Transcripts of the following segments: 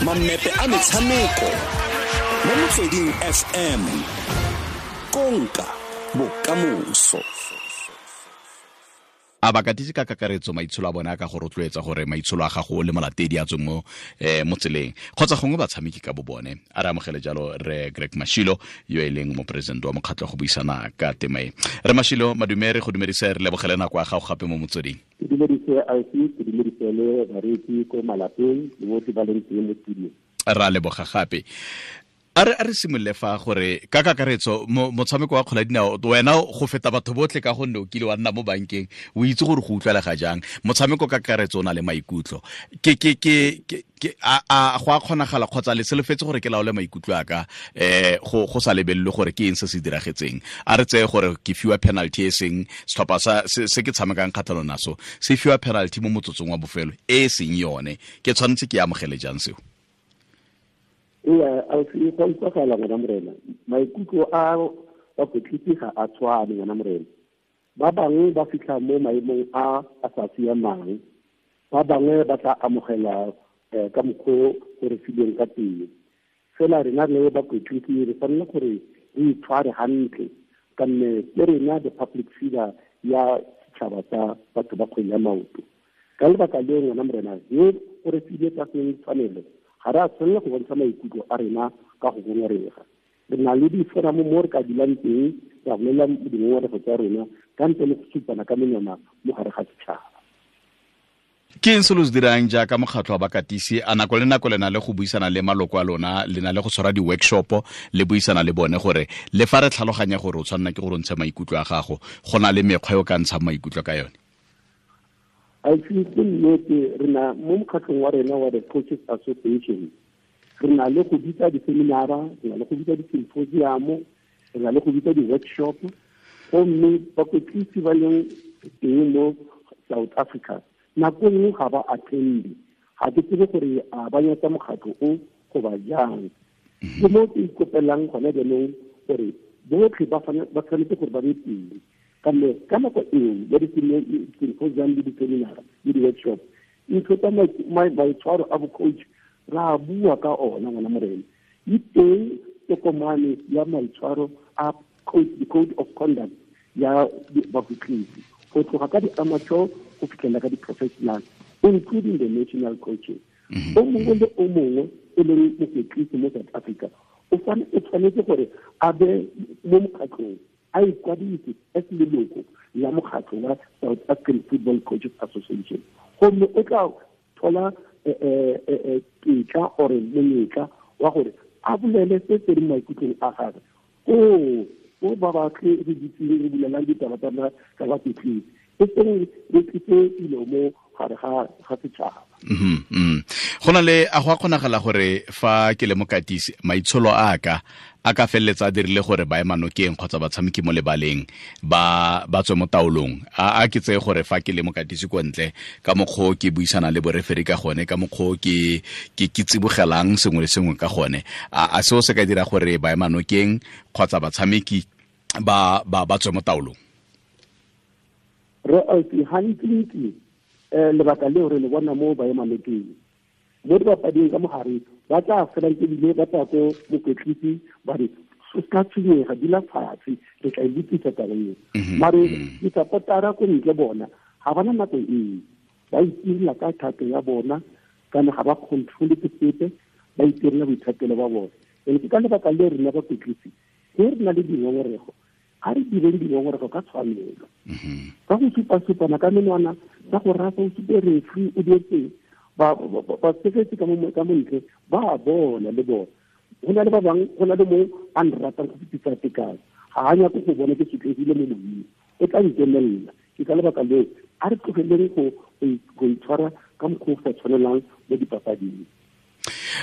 Mammepe a metshameko mo Motsweding FM. Konka bokamoso. A bakatisi ka kakaretso maitsholo a bone a ka go rotloetsa gore maitsholo a gago le molatedi a tswe mo mo tseleng, kgotsa gongwe batshameki ka bo bone? A re amogele jalo re Greg Mashilo, yo e leng moporesidente wa mokgatlho, go buisana ka tema e. Re Mashilo, madume, re go dumedise, re lebogele nako ya gago gape mo Motsweding. Ke dumedise IC, ke dumedise le bareetsi ko malapeng le botlhe ba leng teng mo studio. Ra leboga gape. A re simolole fa gore ka kakaretso motshameko wa kgola dinao, wena go feta batho botlhe ka gonne o kile wa nna mo bankeng, o itse gore go utlwalega jang motshameko ka kakaretso o na le maikutlo. Ke a go a kgonagala kgotsa le solofetse gore ke laole maikutlo a ka go sa lebelelwe gore ke eng se se diragetseng? A re tseye gore ke fiwa penalty, e seng setlhopha sa se ke tshamekang kgatlhanong naso se fiwa penalty mo motsotsong wa bofelo e seng yone, ke tshwanetse ke amogele jang seo? Ee, ausi, go utlwagala, ngwana morena. Maikutlo a bakwetlisi ga a tshwane, ngwana morena. Ba bangwe ba fitlha mo maemong a a sa siamang, ba bangwe ba tla amogela ka mokgwa o re filweng ka teng. Fela rena le bakwetlisi re tshwanela gore re itshware hantle, ka nne ke rena the public figure ya setšhaba sa batho ba kgwele ya maoto. Ka lebaka leo, ngwana morena, yo o re file tsa seng tshwanelo, ga re a tshwanela go bontsha maikutlo a rena ka go ngongorega. Re na le diforamo mo re ka dulang teng ra bolela dingongorego tsa rona ka ntle le go supana ka menwana mo gare ga setšhaba. Ke eng se lo se dirang jaaka mokgatlho wa bakatisi? A nako le nako le na le go buisana le maloko a lona, le na le go tshwara di-workshop le buisana le bone gore le fa re tlhaloganya gore o tshwanela ke gore o ntshe maikutlo a gago, go na le mekgwa e o ka ntshang maikutlo ka yone? Ausi, ke nnete, re na mo mokgatlhong wa rena wa the Coaches Association, re na le go bitsa di-seminara, re na le go bitsa di-symposium, re na le go bitsa di-workshop, gomme bakwetlisi ba leng teng mo South Africa nako nngwe ga ba attende. Ga ke tsebe gore a ba nyatsa mokgatlho o goba jang. Ke mo ke ikopelang gone jaanong gore botlhe ba tshwanetse gore ba be teng, ka mme ka nako eo ya di-symposium le di-seminara le di-workshop, ntho tsa maitshwaro a bo-coach ra bua ka ona, ngwana morena. E teng tokomane ya maitshwaro a coach, the code of conduct ya bakwetlisi, go tloga ka di-amateur go fitlhela ka di-professional, including the national coaches. O mongwe le o mongwe e leng mokwetlisi mo South Africa o tshwanetse gore a be mo mokgatlhong, a ikwadise as leloko la mokgatlho wa South African Football Coaches Association, gomme o tla thola tetla ore monyetla wa gore a bolele se se leng maikutlong a gagwe ko ba batle re ditseng re bulelang ditaba tsa bakwetlisi, e seng re tlise dilo mo gare ga setšhaba. Go na le a go a kgonagala gore fa ke le mokatisi, maitsholo a ka a ka feleletsa a dirile gore ba emanokeng kgotsa batshameki mo lebaleng ba tswe mo taolong? A ke tseye gore fa ke le mokatisi ko ntle, ka mokgwa o ke buisana le boreferi ka gone, ka mokgwa o ke tsibogelang sengwe le sengwe ka gone, a seo se ka dira gore ba emanokeng kgotsa batshameki ba tswe mo taolong? Re ausi, gantsi lebaka leo re le bona mo baemanokeng, mo dibapading ka mogare ba tla felang ebile ba tla ko mokwetlisi ba re, "O ka tshwenyega, dula fatshe, re tla e lokisa taba eo." Mare di-supportera ko ntle bona ga bana nako eo, ba itirela ka thato ya bona, kana ga ba controle ke sepe, ba itirela boithatelo ba bona. And ke ka lebaka le rena bakwetlisi ge re na le dingongorego, ga re direng dingongorego ka tshwanelo, ka go supa-supana ka menwana, ka go rasa, o supe referee o dietseng, batshegetsi ka mo ntle ba a bona le bona. Go na le ba bangwe, go na le mo a nratang go fetisa tekano, ga a nyako go bona ke sotlegile mo moyeng, o tla nkemelela. Ke ka lebaka leo a re tlogeleng go itshwara ka mokgwa o sa tshwanelang mo dipapading.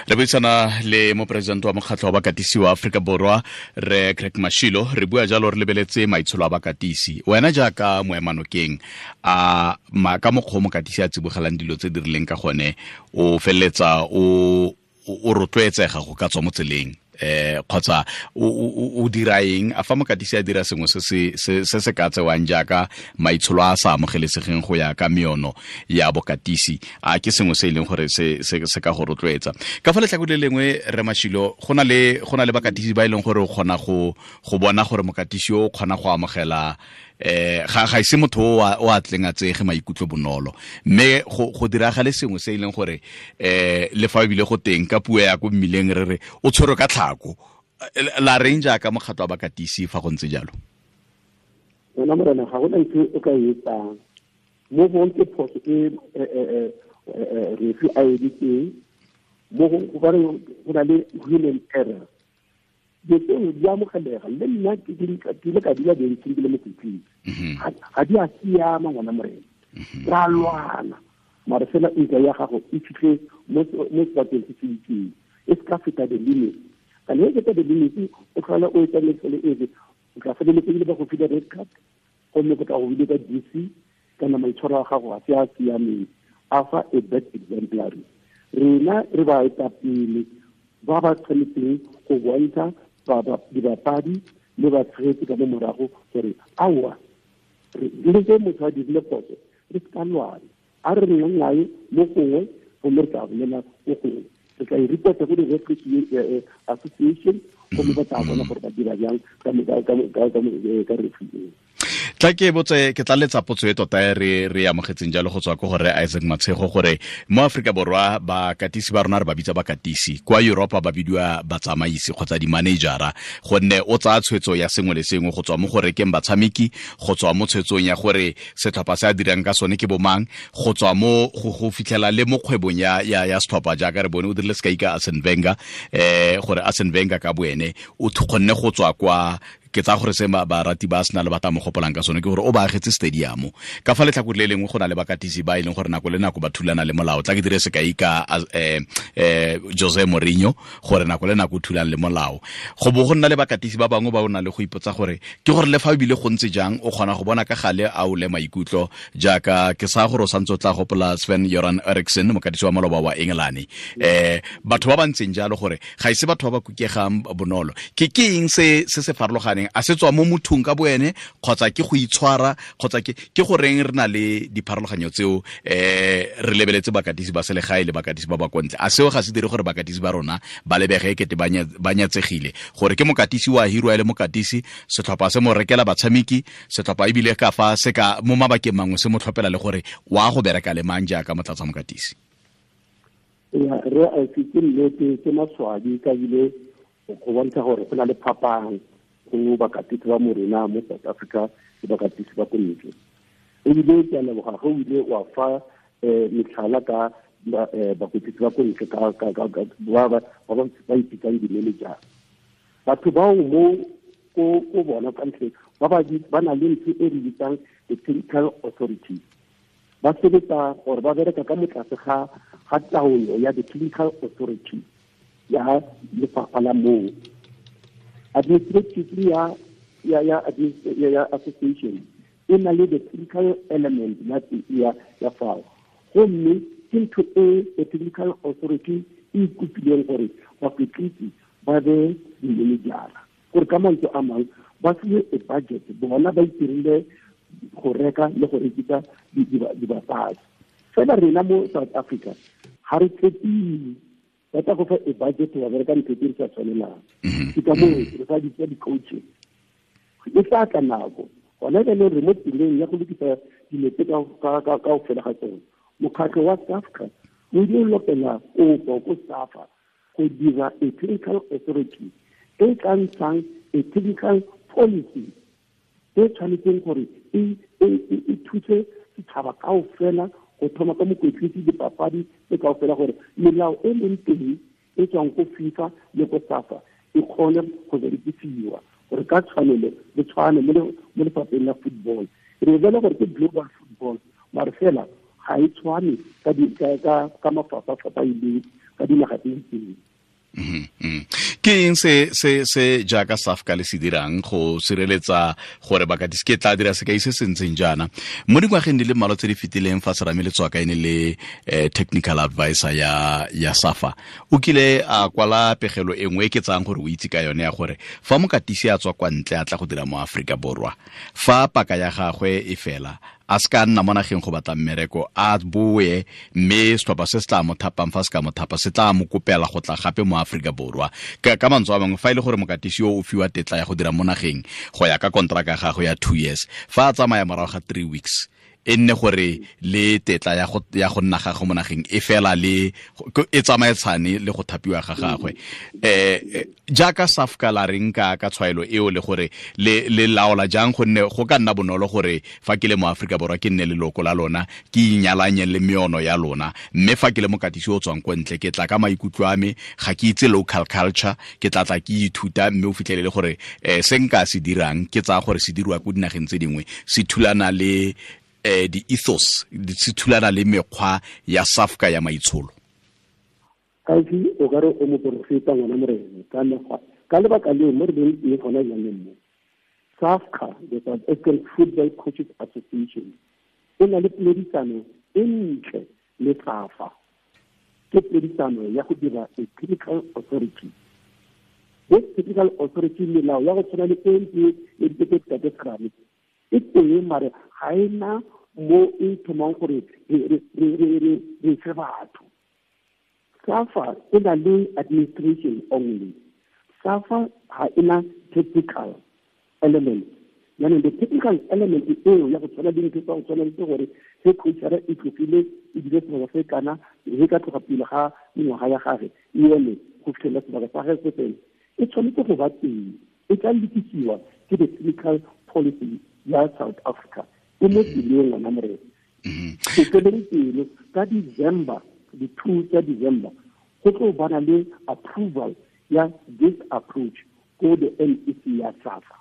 Re buisana le moporesidente wa mokgatlho wa bakatisi wa Aforika Borwa, re Craig Mashilo. Re bua jalo re lebeletse maitsholo a bakatisi. Wena jaaka moemanokeng, a ka mokgwa o mokatisi a tsibogelang dilo tse di rileng ka gone, o feleletsa o rotloetsega go ka tswa mo tseleng? Kgotsa o dira eng a fa mokatisi a dira sengwe se se ka tsewang jaaka maitsholo a sa amogelesegeng go ya ka meono ya bokatisi, a ke sengwe se e leng gore se ka go rotloetsa? Ka fa letlhako le lengwe, re Mashilo, go na le bakatisi ba e leng gore o kgona go bona gore mokatisi o kgona go amogela ga ise motho o a tleng a tsege maikutlo bonolo, mme go diragale sengwe se e leng gore le fa ebile go teng ka puo ya ko mmileng re re o tshwerwe ka tlhako. La reng jaaka mokgatlo wa bakatisi fa go ntse jalo? Wena morena, ga gona ntho o ka e etsang mo gong ke phoso e refi a editseng mo gong, gobane go na le human error. Dilo tseo di amogelega. Le nna ke ile ka dula bentseng ke le mokwetlisi, ga di a siama ngwana morena, ra lwana, mare fela ntwa ya gago e fitlhe mo sebakeng se se itseng, e se ka feta the limit. Kana e feta the limit, o tlhola o etsa metsele efe, o tla feleletse ebile ba go file red card, gomme go tla go bile ka DC kana maitshwaro a gago ga se a siameng, a fa a bad exemplary. Rena re ba etapele ba ba tshwanetseng go bontsha dibapadi le batshegetsi ka mo morago gore aowa, le ge motho a dirile phoso re se ka lwana, a re nnang nae mo gongwe, gomme re tla bolela mo gongwe, re tla e reporta go di-referee association, gomme ba tla bona gore ba dira jang ka referee eo. Tla ke botse, ke tla letsa potso e tota e re amogetseng jalo go tswa ko gore Isaac Matshego, gore mo Afrika Borwa bakatisi ba rona re ba bitsa bakatisi, kwa Europa ba bidiwa batsamaisi kgotsa di-managera, gonne o tsaya tshwetso ya sengwe le sengwe go tswa mo go rekeng batshameki, go tswa mo tshwetsong ya gore setlhopha se a dirang ka sone ke bomang, go tswa mo go fitlhela le mo kgwebong ya setlhopha, jaaka re bone o dirile sekai ka Arsene Wenger, gore Arsene Wenger ka boene o kgonne go tswa kwa, ke tsa gore se barati ba Arsenal ba tla mo gopolang ka sone ke gore o ba agetse stadium. Ka fa letlhakore le lengwe go na le bakatisi ba e leng gore nako le nako ba thulana le molao. Tla ke dire sekai ka Jose Mourinho, gore nako le nako o thulana le molao. Go bo go nna le bakatisi ba bangwe ba o nang le go ipotsa gore ke gore le fa ebile go ntse jang o kgona go bona ka gale a o le maikutlo, jaaka ke sa gore o santse o tla gopola Sven Göran Eriksson, mokatisi wa maloba wa England. Batho ba ba ntseng jalo gore ga ise batho ba ba kukegang bonolo. Ke eng se se farologaneng? A se tswa mo mothong ka boene, kgotsa ke go itshwara, kgotsa ke goreng re na le dipharologanyo tseo re lebeletse bakatisi ba selegae le bakatisi ba ba kontle? A seo ga se dire gore bakatisi ba rona ba lebege ekete ba nyatsegile, gore ke mokatisi wa hirwa e le mokatisi, setlhopha se mo rekela batshameki, setlhopha ebile ka fa se ka mo mabakeng mangwe se mo tlhophela le gore wa go bereka le mang jaaka motlatsa mokatisi? Ya, re a ke nnete, ke maswabi ka bile go bontsha gore go na le phapang go bakatisi ba morena mo South Africa le bakatisi ba ko ntle. Ebile ke a leboga ge o ile wa fa metlhala ka bakatisi ba ko ntle ba ipitsang di-manager. Batho bao mo ko bona ka ntle ba na le ntho e re bitsang the technical authority. Ba sebetsa gore ba bereka ka motlase ga taolo ya the technical authority ya lefapha la moo. Administratively ya association e na le the technical element ya fao, gomme ke ntho e the technical authority e ikopileng gore bakwetlisi ba be di-managera, gore ka mantswe a mangwe ba fiwe a budget, bona ba itirile go reka le go rekisa dibapadi. Fela rena mo South Africa ga re tshepiwe, ba tla go fa a budget wa bereka ntho tse di sa tshwanelang. Ke ka moo re sa bitsa di-coaches. E tla tla nako gona jaanong re mo tseleng ya go lokisa dilo tse ka go fela ga tsone. Mokgatlho wa SAFCA o ile o lopela kopo ko SAFA go dira a technical authority e tla ntshang a technical policy e tshwanetseng gore e thuse setšhaba kaofela go thoma ka mokwetlisi, dipapadi tse kaofela, gore melao e leng teng e tswang ko FIFA le ko SAFA e kgone go berekisiwa gore ka tshwanelo le tshwane mo lefapheng la football. Re bele gore ke global football, mare fela ga e tshwane ka mafapha-fapha ileng ka dinaga tse itseng. Ke eng se se se jaaka SAFCA le se dirang go sireletsa gore bakatisi? Ke tla dira sekai se se ntseng jaana: mo dingwageng di le mmalwa tse di fetileng, fa Serame Letswaka e ne le technical advisor ya SAFA, o kile a kwala pegelo e nngwe e ke tsayang gore o itse ka yone, ya gore fa mokatisi a tswa kwa ntle a tla go dira mo Aforika Borwa, fa paka ya gagwe e fela, a se ka nna mo nageng go batla mmereko, a boe, mme setlhopha se se tla mo thapang, fa se ka mo thapa, se tla mo kopela go tla gape mo Aforika Borwa. Ka mantswe a mangwe, fa e le gore mokatisi yo o fiwa tetla ya go dira mo nageng go ya ka kontraka ya gagwe ya 2 years, fa a tsamaya morago ga 3 weeks, e nne gore le tetla ya go nna gagwe mo nageng e fela le e tsamaetshane le go thapiwa ga gagwe. Jaaka SAFCA, la reng ka tshwaelo eo, le gore le laola jang? Gonne go ka nna bonolo gore fa ke le mo Aforika Borwa ke nne leloko la lona, ke inyalanye le meono ya lona, mme fa ke le mokatisi o tswang ko ntle, ke tla ka maikutlo a me, ga ke itse local culture, ke tla tla ke ithuta, mme o fitlhelele gore se nka se dirang, ke tsaya gore se diriwa ko dinageng tse dingwe, se thulana le di-ethos, se thulana le mekgwa ya SAFCA ya maitsholo. Kaisi, o ka re o moporofeta, ngwana morena. Ka mekgwa, ka lebaka leo mo re leng teng gona jaanong mo, SAFCA, the South African Football Coaches Association, e na le poledisano e ntle le SAFA. Ke poledisano ya go dira a technical authority. This technical authority, melao ya go tshwana le e ntse e ditete tate Serame e teng, mare ga e na mo e thomang gore re fe batho. SAFA e na le administration only. SAFA ga e na technical element. Jaanong the technical element eo ya go tshwana le ntho tsa go tshwana le gore ge coachara e tlogile, ebile sebaka se kana ge ka tloga pele ga mengwaga ya gage e eme go fitlhelela sebaka sa gage se fele, e tshwanetse go ba teng. E tla lokisiwa ke the technical policy ya South Africa e mo tseleng, ngwana morena. Ke feleng pelo, ka December, di-2 tsa December, go tlo bana le approval ya this approach ko the NEC ya SAFA.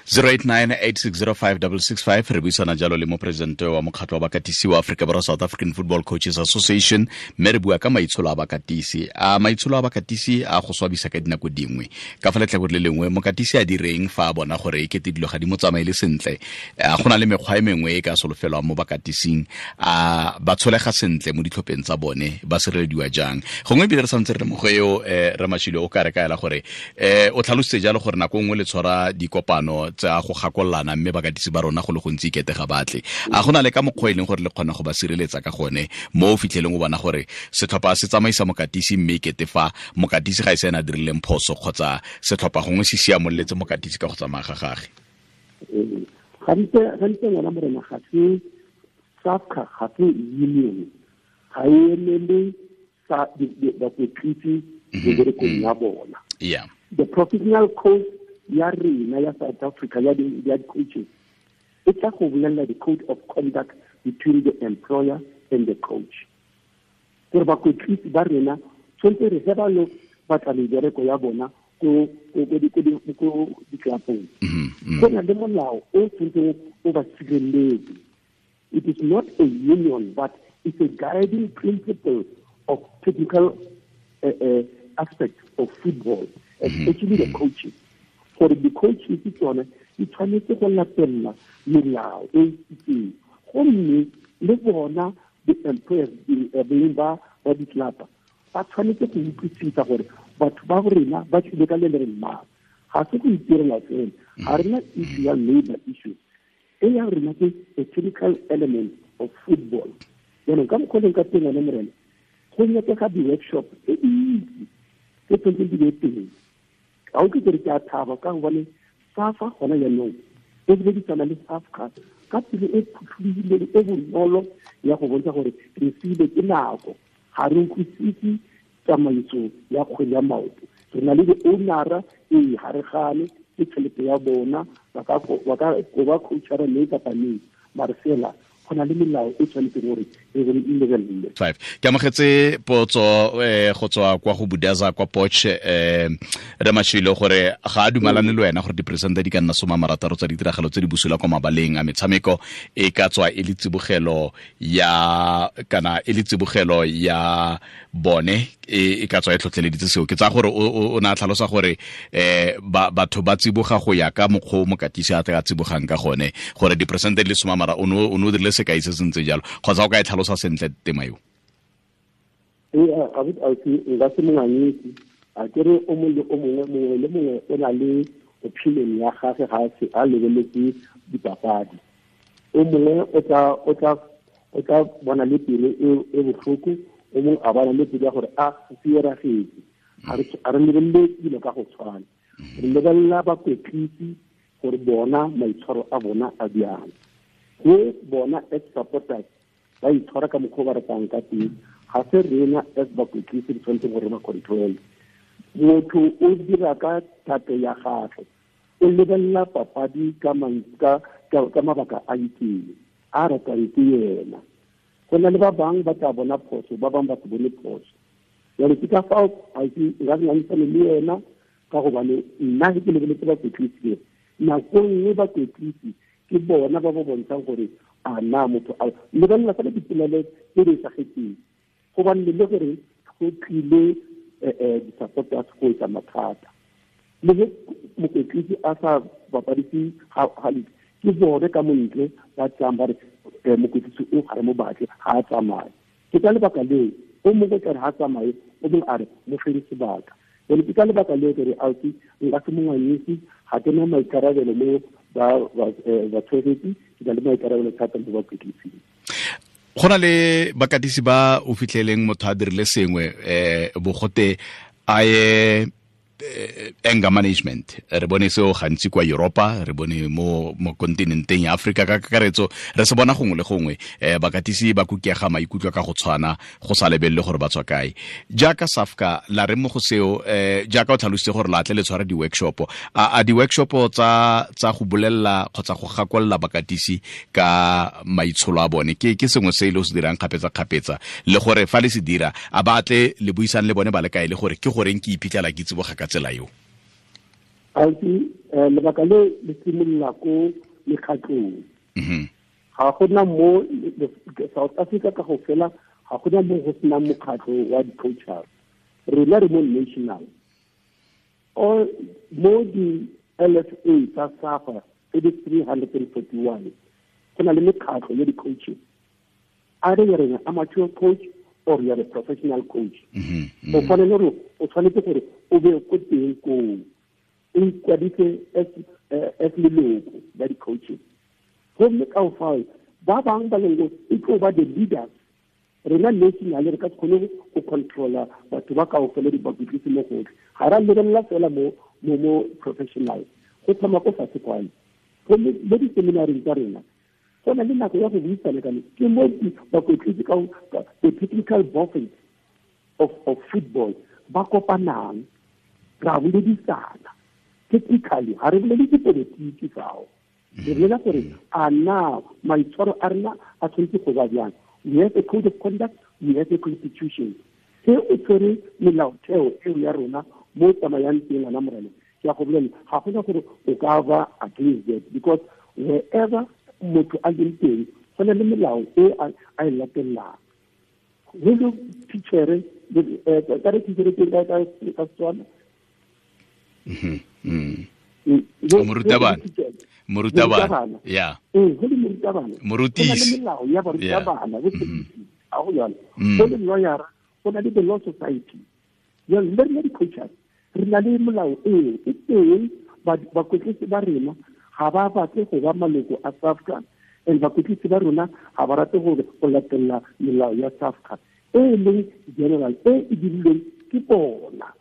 0898605665. Re buisana jalo le moporesidente wa mokgatlho wa bakatisi wa Aforika Borwa, South African Football Coaches Association, mme re bua ka maitsholo a bakatisi. A maitsholo a bakatisi a go swabisa ka dinako dingwe. Ka fa letlhakore le lengwe, mokatisi a direng fa a bona gore e kete dilo ga di mo tsamaele sentle? A go na le mekgwa e mengwe e ka solofelwang mo bakatising? A ba tsholega sentle mo ditlhopheng tsa bone? Ba sirelediwa jang? Gongwe ebile re santse re le mo go eo, Ramashile, o ka re kaela gore o tlhalositse jalo gore nako nngwe le tshwara dikopano tsa go gakololana, mme bakatisi ba rona go le gontsi ikete ga batle. A go na le ka mokgwa e leng gore le kgona go ba sireletsa ka gone, mo o fitlheleng o bona gore setlhopha se tsamaisa mokatisi, mme ikete fa mokatisi ga e se ena a dirileng phoso, kgotsa setlhopha gongwe se siamololetse mokatisi ka go tsamaya ga gage? Gantse gantse, ngwana morena, ga se SAFCA, ga se union, ga e emele sa bakwetlisi meberekong ya bona. The professional code ya rena ya South Africa ya di-coaches e tla go bolelela the code of conduct between the employer and the coach, gore bakwetlisi ba rena tshwanetse re ge ba lo batla mebereko ya bona ko ditlelapong, go na le molao o tshwanetseng o ba sireletse. It is not a union, but it's a guiding principle of technical aspect of football, especially the coaches, gore di-coaches tsone di tshwanetse go latelela melao e itseng. Gomme le bona the employers, beng ba ditlelapa, ba tshwanetse go utlwisisa gore batho ba rena ba tlile ka le le reng mang. Ga se go itirela fela, ga rena issue ya labor issues. E ya rena ke a technical element of football. Jaanong ka mokgwa leng ka teng, one morena, go nyakega di-workshop tse dintsi tse tshwanetseng di be teng. Ga o ke kere ke a thaba ka gobane SAFA gona jaanong e beledisana le SAFCA ka pelo e phutlhulogileng, e bonolo, ya go bontsha gore re siile ke nako, ga re utlwisise tsamaiso ya kgwele ya maoto. Re na le di-ownera, ee, ga re gane, ke tšhelete ya bona, ba ka koba coachara mme kapa neng, mare fela go na le melao e tshwanetseng gore e lebelele. Five. Ke amogetse potso go tswa kwa go Budaza kwa Poch, Ramashilo, gore ga a dumalane le wena gore diperesente di ka nna 60 tsa ditiragalo tse di busula kwa mabaleng a metshameko e ka tswa e le tsibogelo ya, kana e le tsibogelo ya bone. e ka tswa e tlhotlheleditse seo. Ke tsaya gore o ne a tlhalosa gore batho ba tsiboga go ya ka mokgwa o mokatisi a tla tsibogang ka gone, gore diperesente di le 10 o ne o dirile sekai se se ntse jalo, kgotsa o ka e tlhalosa sentle tema eo? Ee, nka se monganyetsi a kere o mongwe le o mongwe, mongwe le mongwe o na le opinion ya gage ga a lebeletse dipapadi. O mongwe o tla bona le pelo e botlhoko, o mongwe a bona le pelo ya gore a se eragetse. Ga re lebelele dilo ka go tshwana, re lebelela bakwetlisi gore bona maitshwaro a bona a bjang, go bona as supporters ba itshwara ka mokgwa o ba ratang ka teng. Ga se rena as bakwetlisi re tshwanetseng gore ba control. Motho o dira ka thato ya gagwe, o lebelela papadi ka mabaka a itseng a ratang ke yena. Go na le ba bangwe ba tla bona phoso, ba bangwe ba se bone phoso. Jalo ke ka fao nka se ngangisane le yena, ka gobane nna ge ke lebeletse bakwetlisi, nako nngwe bakwetlisi ke bona ba ba bontshang gore a na motho a lebelela fela dipolelo tse di esagetseng, gobane le gore go tlile di-supporters go etsa mathata. Le ge mokwetlisi a sa bapadise hantle, ke bone ka montle ba tlang ba re mokwetlisi o ga re mo batle, ga a tsamaye. Ke ka lebaka leo o mongwe tla re ga a tsamaye, o mongwe a re mo fele sebaka. Jalo ke ka lebaka leo ke re ausi nka se monganyisi, ga ke na maikarabelo mo batshegetsi, ke na le maikarabelo thata mo bakwetlising. Go na le bakatisi ba o fitlheleng motho a dirile sengwe bogote a ye anger management. Re bone seo gantsi kwa Europa, re bone mo kontinenteng ya Afrika ka kakaretso, re se bona gongwe le gongwe. Bakatisi ba kukega maikutlo ka go tshwana, go sa lebelele gore ba tswa kae. Jaaka SAFCA la re mo go seo, jaaka o tlhalositse gore la tle le tshwara di-workshop, a di-workshop tsa go bolelela kgotsa go gakolla bakatisi ka maitsholo a bone ke sengwe se e le o se dirang kgapetsa-kgapetsa, le gore fa le se dira a ba tle le buisang le bone ba le kae, le gore ke goreng ke iphitlhela ke tsiboga ka tsela eo? Ausi, lebaka le le simolola ko mekgatlong. Ga gona mo South Africa ka go fela, ga gona mo go senang mokgatlho wa di-coaches. Rena re mo national. Mo di-LFA tsa SAFA tse di 341, go na le mekgatlho ya di-coaches. Either you're an amateur coach or you're a professional coach. O tshwanetse gore o be ko teng koo, o ikwadise as leloko la di-coaches. Gomme ka fao ba bangwe ba leng e tlo ba the leaders. Rena national re ka se kgone go controla batho ba kaofela dibakwetlisi mo gotlhe. Ga ra lebelela fela mo professional, go thoma ko fatshe kwane. Gomme mo di-seminareng tsa rena go na le nako ya go buisana ka ke mo bakwetlisi ka the technical bosses of football ba kopanang, ra boledisana technically. Ga re bolele dipolotiki fao, re bolela gore a na maitshwaro a rena a tshwanetse go ba bjang. We have a code of conduct, we have a constitution. Se o tshwere melaotheo eo ya rona mo tsamayang teng ngwana morena, ke a go bolela ga gona gore o ka ba against that, because wherever motho a leng teng go na le melao e a e latelang. Go le teachere, ka re teachere teng ka Setswana, morutabana, ya go le morutabana, morutisi, melao ya barutabana, a go jalo. Go le lawyer, go na le the law society. Jalo le rena di-coaches re na le molao eo e teng. Bakwetlisi ba rena ga ba batle go ba maloko a SAFCA, and bakwetlisi ba rona ga ba rate go latelela melao ya SAFCA e leng general e e dirilweng ke bona.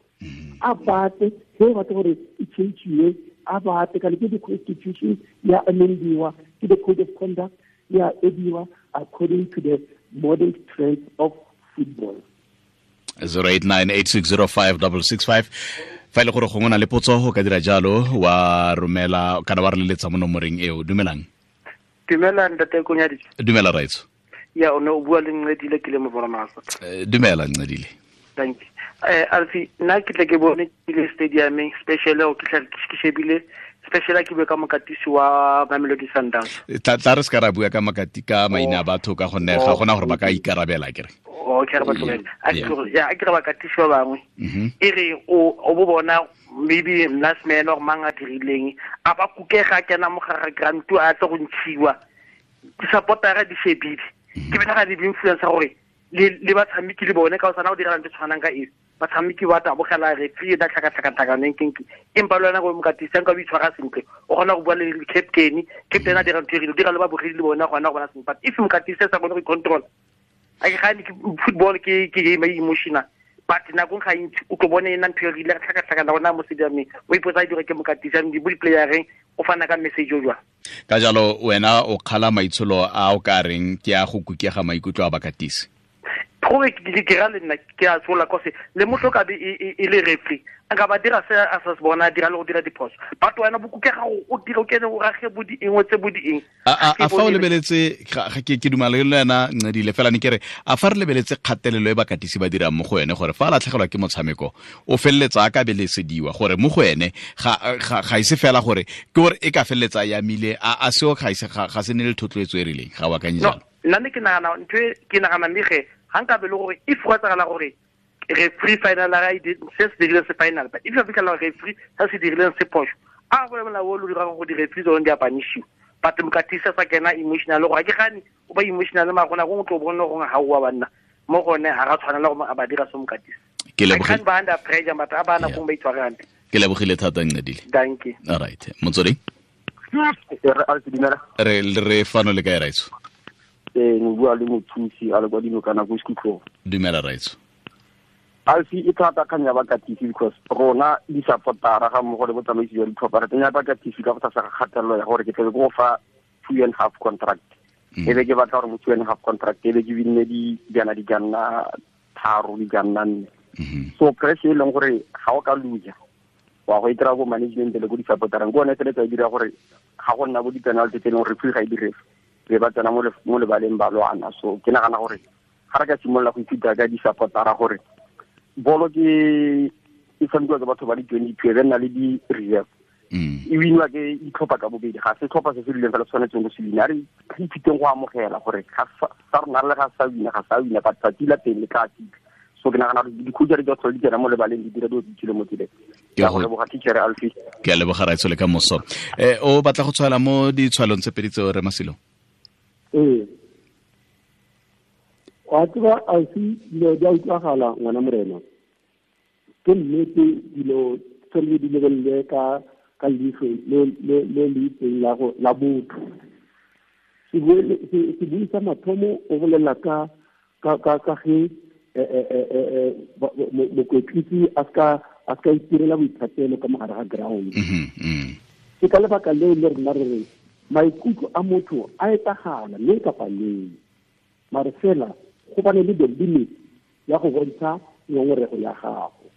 A batle ge batla gore e change-iwe, a batle kana ke di-constitution ya amendiwa, ke the code of conduct ya ediwa according to the modern trends of football. 0898605665 fa ile gore gongwe na le potso go ka dira jalo wa romela kana wa re leletsa mo nomoreng eo. Dumelang. Dumela ntate Konyadi. Dumela raitso. Ya o ne o bua le Ncedile ke le mo bona masa. Dumela Ncedile. Thank you. Alfi, nna ke tle ke bone ke le stadiumeng specially o ke tla ke shebile Especially ke bue ka mokatisi wa Mamelodi Sundowns. Tla re se ka ra bua ka makati ka maina a batho ka gonne ga gona gore ba ka ikarabela kere. Okay, re ba tlogele. A ke re bakatisi ba bangwe. E re o bo bona maybe last man or mang a dirileng a ba kukega kena mo gare grant a tlo go ntshiwa. Di-supportera di shebile. Ke bena ga di influence gore le batshameki le bone ka o sana go dira ntho tshwanang ka e. Batshameki ba tabogela referee da tlhakatlhakatlhakaneng kenke empa le wena go mokatisi nka o itshwara sentle o kgona go bua le captain a dira ntho e rile dira le babogedi le bona gona go bona sentle. But if mokatisi a sa kgone go i-control, a ke gane football ke game e emotional, but nakong ga ntsi o tlo bone ena ntho e rile tlhakatlhakana gona mo stadiumeng o ipotsa a dira ke mokatisi a bo di-playereng o fana ka message o jwang. Ka jalo wena o kgala maitsholo a o ka reng ke a go kukega maikutlo a bakatisi. Gore ke ra le nna ke a tshola kose le motho ka be e le referee a ka ba dira se a sa se bona dira le go dira diphoso, but wena bo kukega o dira o kene o rage bo di engwe tse bo di eng. A fa o lebeletse ke dumela le wena Ncedile fela ne ke re a fa re lebeletse kgatelelo e bakatisi ba dirang mo go ene gore fa a latlhegelwa ke motshameko o feleletsa a ka belesediwa gore mo go ene ga ise fela gore ke gore e ka feleletsa ya mile a seo ga ise ga se ne le thotloetso e rileng ga wa akanye jalo. Nna ne ke nagana ntho e ke nagana mme ge ga nka be le gore if go etsagala gore referee final a se se dirileng se final, but if a fitlhela referee se se dirileng se phoso a go molao o lo dirang go di-referee tsone di a punishiwa. But mokatisi a sa kena emotional gore ga ke gane o ba emotional mara gona gongwe tlo bone gore ga oa banna mo gone ga ra tshwanela gore a ba dira se mokatisi. Ke lebogile ba under pressure but a bana gongwe ba itshware hantle. Ke lebogile thata Ncedile. Thank you. All right. Motsweding. Re fano le kae raitso? Mo bua le mothusi a le kwa dinokana ko Sekhutlong. Dumela raitso. Alfi e thata kgang ya bakatisi because rona di-supportera ga mmogo le botsamaisi jwa ditlhopha re tsenya bakatisi ka go tlasa ga kgatelelo ya gore ke tlebe ke go fa 2.5 contract. E be ke batla gore mo 2.5 contract e be ke binne dijana di ka nna 3 di ka nna 4. So pressure e leng gore ga o ka loser wa go itira go management le go di-supporterang ke one feletsa e dira gore ga go nna bo di-penalty tse e leng gore referee ga e dire re ba tsena mo lebaleng ba lwana. So ke nagana gore ga re ka simolola go ithuta ka di-supportera gore bolo ke e tshamekiwa ke batho ba le 22 e be nna le di-reserve e winwa ke ditlhopha ka bobedi ga se tlhopha se se rileng fela tshwanetseng go se wina. A re ithuteng go amogela gore sa rona le ga sa wina ga sa wina but tsatsi la teng le tla fitlha. So ke nagana gore di-coach di tlhole di tsena mo lebaleng di dira dilo tse di tswileng mo tseleng. Ke a leboga teacher Alfie. Ke a leboga raitso le ka moso. O batla go tshwaela mo ditshwaelong tse pedi tseo re Masilo? Ee. Wa tseba Alfie dilo di a utlwagala ngwana morena. Ke nnete dilo tshwanetse di lebelele ka leitlho le le itseng la botho. Sebui sa mathomo o bolela ka ge mokwetlisi a ska itirela boithatelo ka mogare ga ground. Ke ka lebaka leo le rena re re maikutlo a motho a etsagala mme kapa neng, mare fela go bane le the limit ya go bontsha ngongorego ya gago.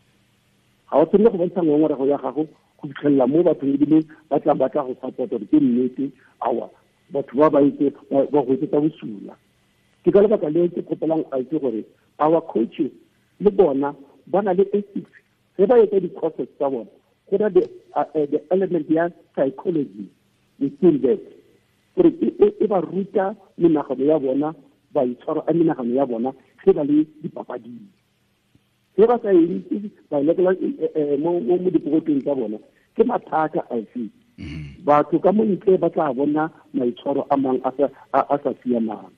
Ga o tshwanele go bontsha ngongorego ya gago go fitlhelela mo bathong ebile ba tla batla go support gore ke nnete aowa batho ba ba itse ba go etsetsa bosula. Ke ka lebaka leo ke kgopelang Alfie gore our coaches le bona ba na le ethics ge ba etsa di-courses tsa bona go na the element ya psychology within that gore e ba ruta menagano ya bona baitshwaro a menagano ya bona ge ba le dipapading. Ge ba sa e ba lekela mo dipokotong tsa bona ke mathata Alfie. Batho ka mo ntle ba tla bona maitshwaro a mang a sa siamang.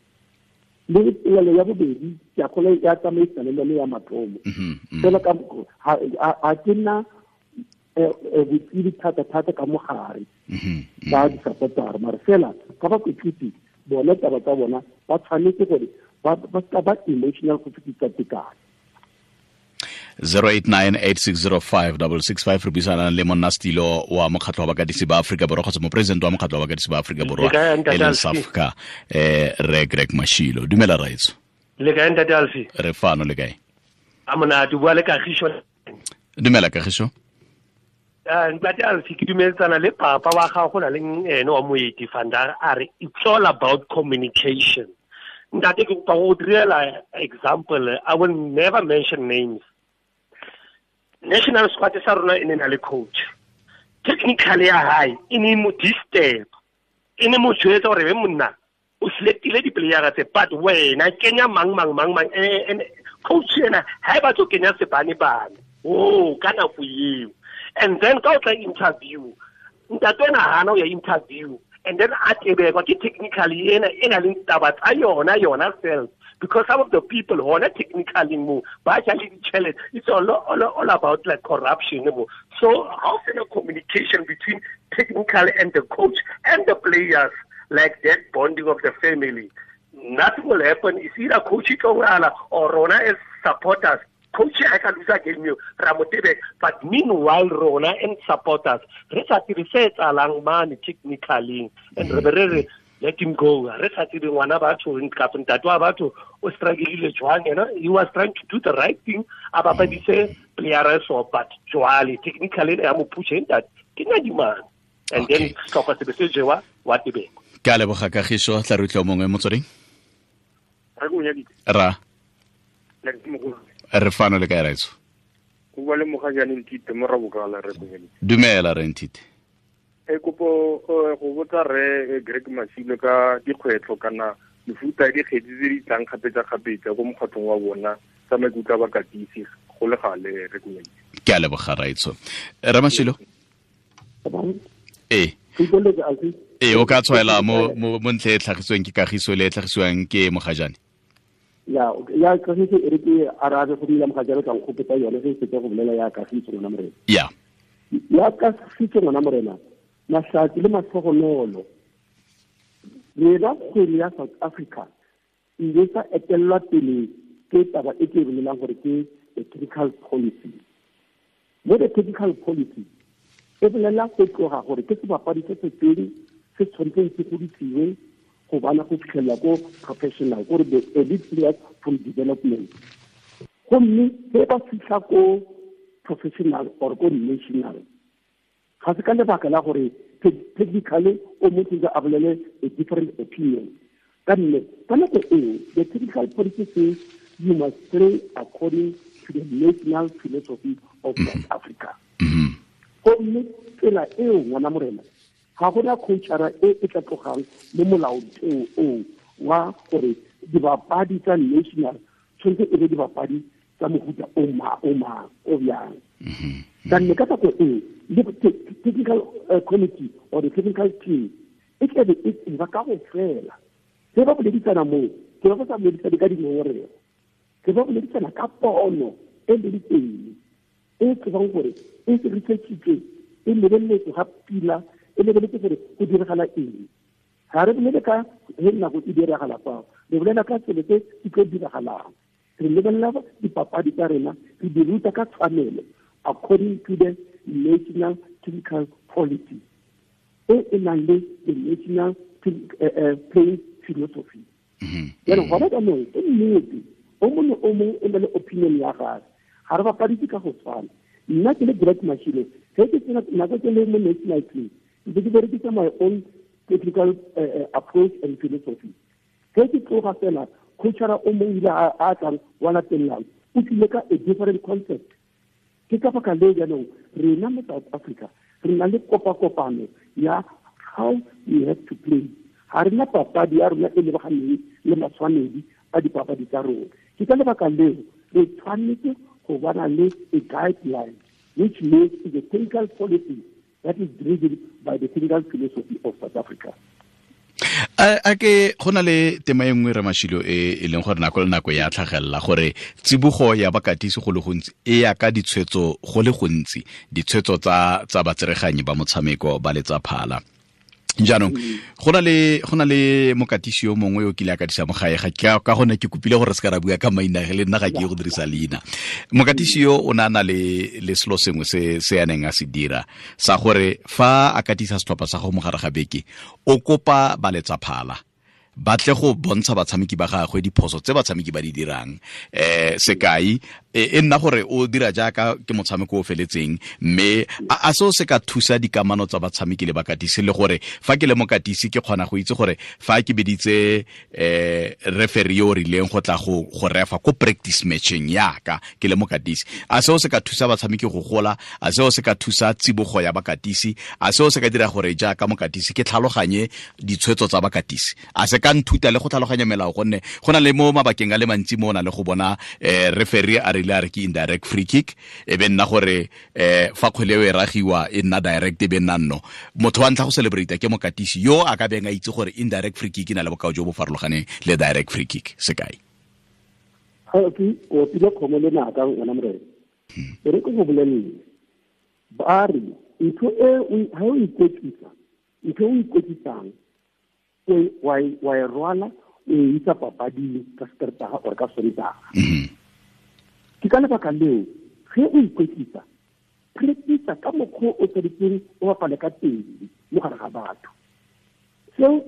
Le polelo ya bobedi ke a kgolwa ya tsamaisana le yone ya mathomo. Fela ka ga ke nna botsebi thata-thata ka mogare ba di-supportera mare fela ka bakwetlisi bona taba tsa bona ba tshwanetse gore ba ska ba emotional go fetisa tekano. 0898605665 re buisana le monnastilo wa mokgatlho wa bakatisi ba Afrika Borwa kgotsa mopresidente wa mokgatlho wa bakatisi ba Afrika Borwa e leng SAFCA re Greg Mashilo. Dumela raitso. Le kae ntate Alfie? Re fano le kae? A monate bua le Kagiso. Dumela Kagiso. Ntate Alfie ke dumeletsana le papa wa gago go na le ene wa moeti Fandar a re it's all about communication. Ntate ke kopa go direla example, I will never mention names. National squad sa rona e ne na le coach. Technically ya hae e ne mo disturb, e ne mo jwetsa gore be monna o selectile di-playera tse, but wena kenya mang mang mang mang, and coach ena ha e batlo kenya sebane bane o ka nako eo. And then ka o tla interview, ntate ena hana o ya interview, and then a tebekwa ke technically ena e na leng taba tsa yona self, because some of the people who are not technically mo ba ja le ditjhelete. It's all about like corruption mo. So how can a communication between technical and the coach and the players, like that bonding of the family, nothing will happen. It's either coach or rona as supporters. Coach I can lose a game you Ramotebe, but meanwhile rona and supporters re sa tsebe se etsahalang mane technically, and re let him go. Re sa tsebe ngwana batho kapa ntate wa batho o struggle jwang, you know, he was trying to do the right thing, a bapadise player so, but jwale technically ya mo push ntate ke nyadimane, and then sehlopha se be se jewa wa tebeko. Ke a leboga Kagiso, tla re utlwa mongwe motsweding. Ra re fano le kae raitso? Go bua le Mogajane Nthite mo Rabokala re konyeditse. Dumela re Nthite. E kopo go botsa re Greg Mashilo ka dikgwetlho kana mefuta ya dikgetsi tse di tlang kgapetsa-kgapetsa ko mokgatlhong wa bona tsa maikutlo a bakatisi go le gale re konyeditse. Ke a leboga raitso. Ramashilo. Ee. Ee, o ka tshwaela mo ntle e tlhagisweng ke Kagiso le e tlhagisiwang ke Mogajane. Ya Kagiso e re ke arabe go dira Mogajane ka nkgopotsa yone ge e fetsa go bolela ya Kagiso ngwana morena. Ya. Ya Kagiso ngwana morena, mahlatsi le matlhogonolo. Rena kgwele ya South Africa e ile sa etellwa pele ke taba e ke e bolelang gore ke the technical policy. Mo the technical policy e bolela go tloga gore ke sebapadi se se teng se tshwanetseng se godisiwe go bana go fitlhelela ko professional, gore the elite players from development. Gomme ge ba fitlha ko professional or ko national, ga se ka lebaka la gore technically o motho a bolele a different opinion. Ka nne ka nako eo the technical policy says you must play according to the national philosophy of South Africa. Gomme tsela eo ngwana morena ga gona coachara e e tla tlogang mo molaotheo oo wa gore dibapadi tsa national tshwanetse e be dibapadi tsa mohuta o mang o bjang. Ka nne ka nako eo le technical committee or the technical team e tlabe e tseba ka go fela. Ge ba boledisana moo, ke ba sa boledisane ka dingongorego, ke ba boledisana ka pono e leng teng e tsebang gore e se researchitswe, e lebeletswe ga pila, e lebeletse gore go diragala eng. Ga re bolele ka ge nako e diragala fao, re bolela ka selo se se tlo diragalang. Re lebelela dipapadi tsa rena, re di ruta ka tshwanelo according to the national technical policy e e nang le the national playing philosophy. Jaanong gona jaanong ke nnete, o mongwe o mongwe o na le opinion ya gagwe, ga re bapadise ka go tshwana. Nna ke le Greg Mashilo, ge ke tsena nako ke le mo national team, ntse ke berekisa my own technical approach and philosophy. Ge ke tloga fela, coachara o mongwe ile a tlang wa latellang, o tlile ka a different concept. Ke ka baka leo jaanong rena mo South Africa re na le kopakopano ya how we have to play. Ga re na papadi ya rona e lebaganeng le matshwanedi a dipapadi tsa rona. Ke ka lebaka leo re tshwanetse go bana le a guideline which means is a technical policy that is driven by the technical philosophy of South Africa. A ke go na le tema e nngwe Ramashilo e leng gore nako le nako ya tlhagelela gore tsibogo ya bakatisi go le gontsi e ya ka ditshwetso go le gontsi, ditshwetso tsa batsereganyi ba motshameko ba letsa phala. Jaanong go na le mokatisi yo mongwe yo kile a katisa mo gae, ga ka gone ke kopile gore se ka ra bua ka maina le nna ga ke ye go dirisa leina. Mokatisi yo o ne a na le selo sengwe se a neng a se dira sa gore fa a katisa setlhopha sa go mogare ga beke, o kopa baletsa phala ba tle go bontsha batshameki ba gagwe diphoso tse batshameki ba di dirang. Sekai E nna gore o dira jaaka ke motshameko o feletseng, mme a seo se ka thusa dikamano tsa batshameki le bakatisi, le gore fa ke le mokatisi ke kgona go itse gore fa ke beditse referee yo o rileng go tla go refa ko practice matching yaka ke le mokatisi, a seo se ka thusa batshameki go gola, a seo se ka thusa tsibogo ya bakatisi, a seo se ka dira gore jaaka mokatisi ke tlhaloganye ditshwetso tsa bakatisi, a se ka nthuta le go tlhaloganya melao, gonne go na le mo mabakeng a le mantsi mo o na le go bona referee a rile a re ke indirect free kick, e be nna gore fa kgwele eo e ragiwa e nna direct, e be nna nno motho wa ntlha go celebrate ke mokatisi yo a ka beng a itse gore indirect free kick e na le bokao jo bo farologaneng le direct free kick, sekai. O pile kgomo le naka ngwana morena. E re ke go bolelele, ba re ntho e ha o ikwetlisa, ntho e o ikwetlisang wa e rwala o e isa papading ka Satertaga or ka Sontaga. Ke ka lebaka leo ge o ikwetlisa, practice ka mokgwa o tshwanetseng o bapale ka teng mo gare ga batho. Seo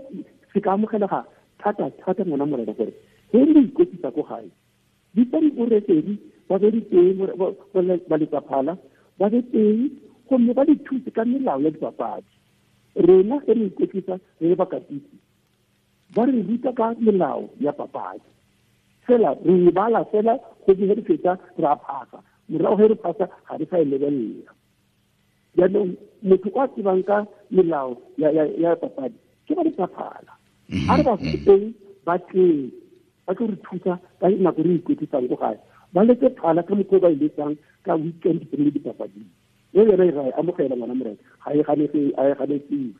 se ka amogelega thata thata ngwana morena, gore ge le ikwetlisa ko gae, bitsa di-referee ba be diteng, ba letsaphala ba be teng, gomme ba le thuse ka melao ya dipapadi. Rena ge re ikwetlisa re le bakatisi, ba re ruta ka melao ya papadi, fela re e bala fela go ge re fetsa re a phasa, morago ge re phasa ga re sa e lebelela. Jaanong motho o a tsebang ka melao ya papadi ke ba letsaphala, a re ba teng ba tleng ba tlo re thusa ka nako re ikwetlisang ko gae, ba letse phala ka mokgwa o ba e letsang ka weekend pele dipapading. E yona e ra e amogela ngwana morena, ga e ganetsiwe.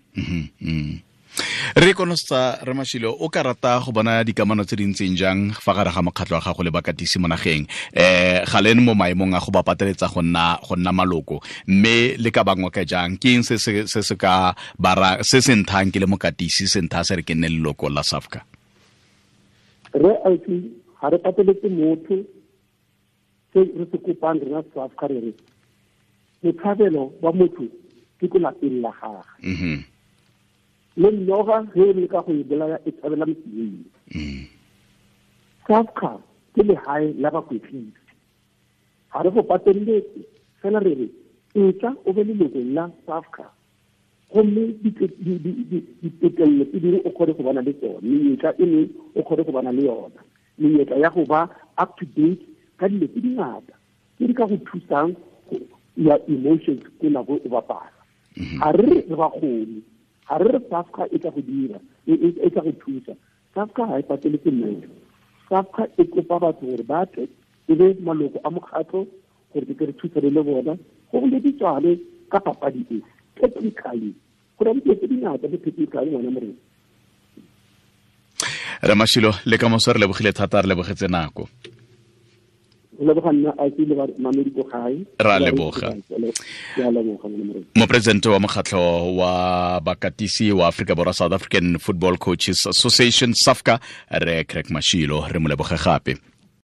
Re konosetsa re Mashilo, o ka rata go bona dikamano tse di ntseng jang fa gare ga mokgatlho wa gago le bakatisi mo nageng? Ga le mo maemong a go ba pateletsa go nna maloko, mme le ka bangwe ka jang? Ke eng se se ka bara se se nthang ke le mokatisi se ntha se re ke nne leloko la SAFCA? Re ausi, ga re pateletse motho. Se re se kopang rena SAFCA, re re botshabelo ba motho ke ko lapeng la gagwe. Le noga ge e leka go e bolaya e tshabela motseng. SAFCA ke lehae la bakwetlisi, ga re go pateletse, fela re re etla o be leloko la SAFCA, gomme ditokelelo tse dingwe o kgone go bana le tsone, menyetla e mengwe o kgone go bana le yona, menyetla ya go ba up to date ka dilo tse dingata tse di ka go thusang ya emotions ko nako o bapala. Ga re re bakgoni, ga re re SAFCA e tla go dira, e tla go thusa. SAFCA ga e pateletse motho. SAFCA e kopa batho gore ba tle e be maloko a mokgatlho gore ke re thusane le bona go boleditswane ka papadi e technically. Go na le dilo tse dingata mo technically ngwana morena. Re Mashilo, le ka moso re lebogile thata, re lebogetse nako. Ra leboga. Mopresidente wa mokgatlho wa bakatisi wa Afrika Borwa, South African Football Coaches Association, SAFCA, re Craig Mashilo, re mo leboge gape.